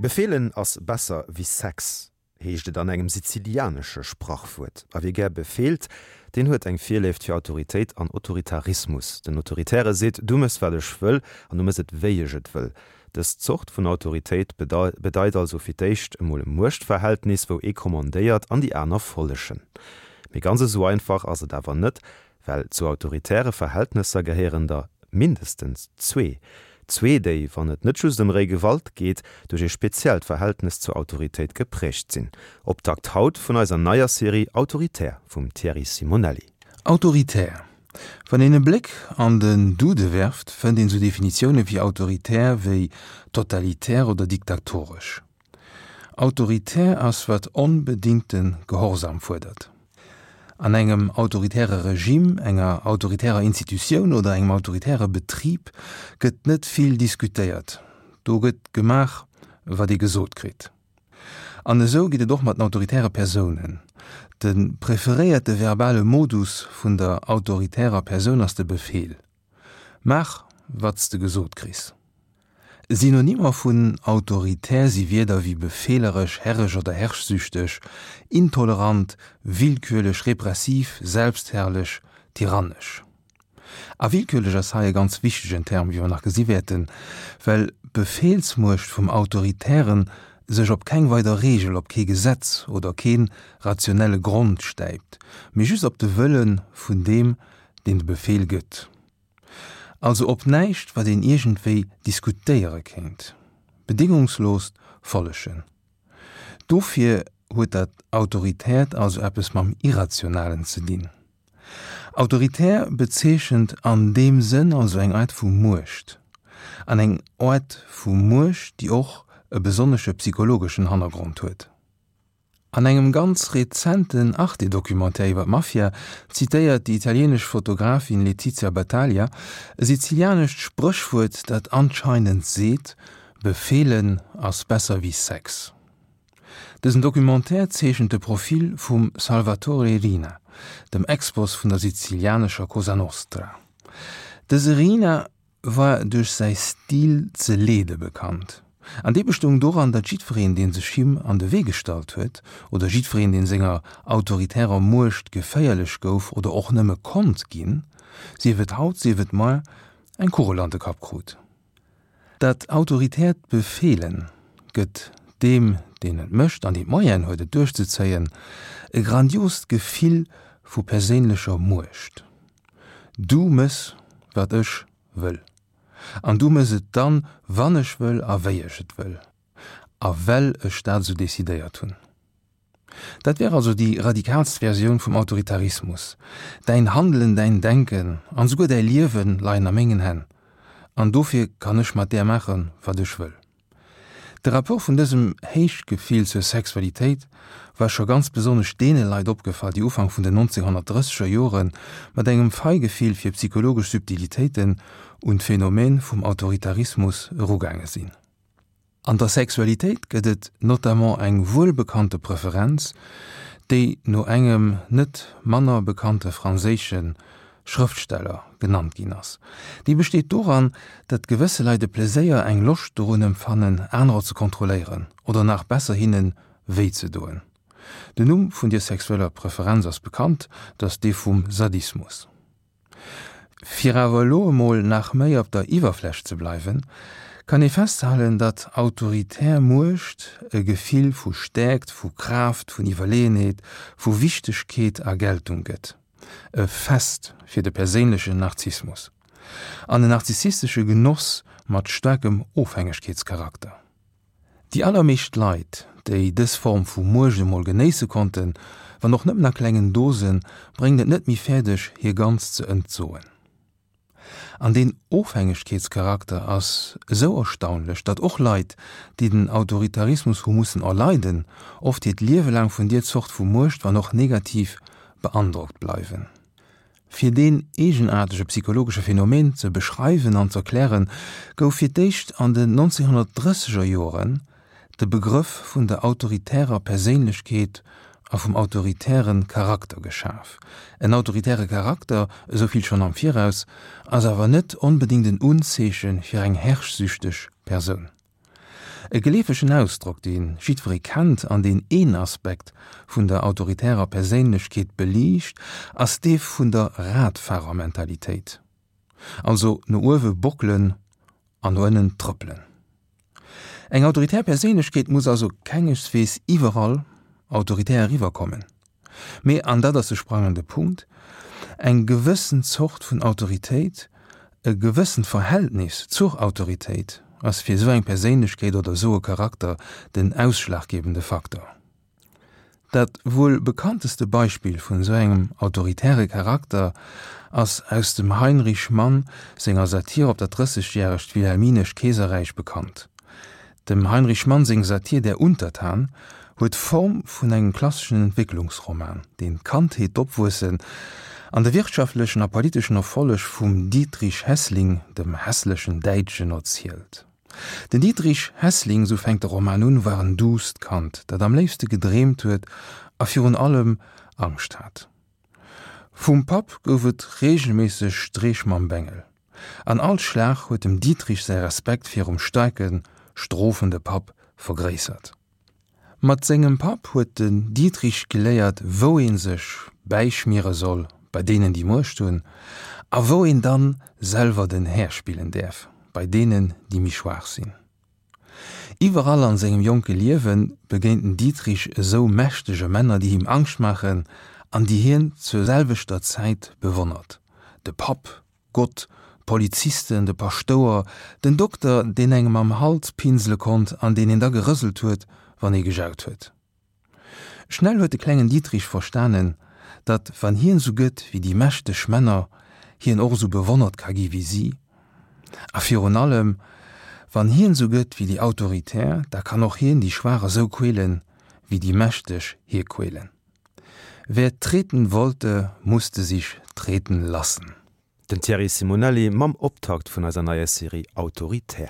Befeelen ass besser wéi Sex, heescht et an engem sizilianesche Sprachwuert. A wie gär befeelt, deen huet eng Virléift fir Autoritéit an Autoritarismus. Den Autoritäre seet, Du mëss wat ech wëll an du mëss et wéi ech et wëll. Dës Zort vun Autoritéit bedeit also fir d'éischt emol e Muechtverhältnis, wou ee kommandéiert an déi aner follegen. Mee ganz esou einfach ass et awer net, Well zu autoritäre Verhältnesser gehéieren der mindestens zwee. Zwee, déi, wann et net just ëm réi Gewalt geet, duerch ee speziellt Verhältnes zur Autoritéit geprägt sinn. Optakt haut vun eiser neier Serie Autoritär vum Thierry Simonelli. Autoritär. Wann een e Bléck an den Dude werft, fënnt een sou Definitioune fir autoritär wéi totalitär oder diktatoresch. Autoritär ass wat onbedingte Gehorsam fuerdert. An engem autoritäre Regime, enger autoritärer Institutioun oder engem autoritäre Betrib gëtt net vill diskutéiert, do gëtt gemaach wat ee gesot kritt. An esou geet et och mat den autoritäre Persounen. De preferéierte verbale Modus vun der autoritärer Persoun ass de Befeel. Maach wat s de gesot kriss. Synonymer vun autoritär si Wierder wéi befeeleresch, herresch oder herrschsüchteg, intolerant, willkürlech, repressiv, selbstherrlech, tyrannesch. A willkürlech ass hei e ganz wichtegen Term, wéi mer nach gesi wäerten, well d'Befehlsmuecht vum Autoritären sech op keng weider Reegel, op kee Gesetz oder kee rationelle Grond stäipt, mee just op de Wëlle vun deem, deen de Befehl gëtt. Also op näischt, wat een iergendwéi diskutéiere kéint. Bedingungsloost Follegen. Dofir huet dat Autoritäert also eppes mam Irrationalen ze dinn. Autoritär bezeechent an deem Sënn also eng Aart vu Muecht. An eng Aart vu Muecht, déi och e besonnesche psychologeschen Hannergrond huet. An engem ganz rezenten Arte-Documentaire iwwer d'Mafia zitéiert déi italienesch Fotografin Letizia Battaglia e sizilianescht Spréchwuert, dat anscheinend seet, Befeelen ass besser wéi Sex. Dësen Documentaire zeechent de Profil vum Salvatore Riina, dem Ex-Boss vun der sizilianescher Cosa Nostra. Dëse Riina war duerch säi Stil ze leede bekannt, an dee bestoung doran, datt jiddwereen, dee sech him an de Wee gestallt huet, oder jiddwereen, dee senger autoritärer Muecht geféierlech gouf oder och nëmme konnt ginn, sief et haut, sief et moar, eng Kugel an de Kapp krut. Dat autoritäert Befeelen gëtt deem, deen et mécht an deen d'Moyenen huet, et duerchzezéien, e grandiost Gefill vu perséinlecher Muecht. Du mëss, wat ech wëll. An du mëss et dann, wann ech wëll a wéi ech et wëll. A well ech dat esou decidéiert hunn. Dat wär also déi radikaalst Versioun vum Autoritarismus. Däin Handelen, däin Denken an esouguer däi Liewe leien a mengen Hänn. An dofir kann ech mat där maachen, wat ech wëll. De Rapport vun dësem Héichgefill zur Sexualitéit war scho ganz besonnesch deene Leit opgefall, déi Ufank vun den 1930er Jore mat engem Feigefill fir psychologesch Subtilitéiten un d'Phänomen vum Autoritarismus erugaange sinn. An der Sexualitéit gëtt et notamment eng wuelbekannte Preferenz, déi no engem net manner bekannte franséische Schrëftsteller genannt ginn ass. Déi besteet doran, datt gewësse Leit e Pleséier, eng Loscht dorun empfannen, anerer ze kontrolléieren oder nach besser hinne wéi ze doen. Den Numm vun dier sexueller Preferenz ass bekannt, dat ass dee vum Sadismus. Fir awer elo emol nach méi op der Iwwerfläch ze bleiwen, kann ee festhalen, datt autoritär Muecht e Gefill vu Stäerkt, vu Kraaft, vun Iwwerleeënheet, vu Wichtegkeet a Geltung gëtt. E Fest fir de perséinlechen Narzissmus an en narzissistesche Genoss mat staarkem Ofhängegkeetscharakter. Déi allermeescht Leit, déi dës Form vu Muecht emol genéisse konnten, wann och nëmmen a klengen Dosen, bréngen et net méi fäerdeg, hir ganz ze entsoen. An deen Ofhängegkeetscharakter ass esou erstaunlech, datt och Leit, déi den Autoritarismus hu mussen erleiden, oft hiert Liewe laang vun dier Zort vu Muecht, wann och negativ, beandrockt bleiwen. Fir deen eegenaartege psychologesche Phänomen ze beschreiwen an z'erklären, gouf fir d'éischt an den 1930er Joren de Begrëff vun der autoritärer Perséinlechkeet a vum autoritäre Charakter geschaf. En autoritäre Charakter, esou vill schonn am Viraus, ass awer net onbedéngt en Unzeeche fir eng herrschsüchteg Persoun. E geleefegen Ausdrock, dee jiddweree kennt an deen een Aspekt vun der autoritärer Perséinlechkeet beliicht, ass dee vun der Radfahrermentalitéit. Also no uewe bockelen an no ënnen trëppelen. Eng autoritär Perséinlechkeet muss also kengeswees iwwerall autoritär eriwwerkommen, mee, an dat ass de sprangende Punkt, eng gewëssen Zort vun Autoritéit, e gewëssent Verhältnis zur Autoritéit ass fir esou eng Perséinlechkeet oder esou e Charakter den ausschlaggebende Faktor. Dat wuel bekannteste Beispill vun esou engem autoritäre Charakter ass aus dem Heinrich Mann senger Satir op dat Drëssegjäregt Wilhelminescht Keeserräich bekannt. Dem Heinrich Mann seng Satir Der Untertan huet d'Form vun engem klasseschen Entwécklungsroman, deen d'Kandheet, d'Opwuessen an de wirtschaftlechen a politeschen Erfolleg vum Dietrich Heßling, dem hässlechen Däitschen, erzielt. Den Dietrich Heßling, sou fänkt de Roman un, war en duusst Kand, dat am léifste gedreemt huet a virun allem Angscht hat. Vum Papp gouf et reegelméisseg Streech mam Bengel, an all Schlag huet dem Dietrich säi Respekt virum staarke, strofende Papp vergréissert. Mat sengem Papp huet den Dietrich geléiert, wou ee sech bäischmiere soll bei deenen, déi Muecht hunn, a wou een dann selwer den Här spillen däerf bei deenen, déi méi schwaach sinn. Iwwerall an sengem jonke Liewe begéint den Dietrich esou mächtege Männer, déi him Angscht maachen an déi hien zur selwechter Zäit bewonnert, de Papp, Gott, d'Polizisten, de Paschtouer, den Dokter, deen engem am Hals pinsele konnt an deen een da gerëselt huet, wann ee gejaut huet. Schnell huet de klengen Dietrich verstanen, datt wann hien esou gëtt wéi déi mächteg Männer, hien och esou bewonnert ka gi wéi si. A virun allem, wann hien esou gëtt wéi déi Autoritär, da kann och hien déi Schwaach esou quälen, wéi déi Mächteg hie quälen. Wer treten wollte, musste sich treten lassen. Den Thierry Simonelli mam Optakt vun eiser neier Serie Autoritär.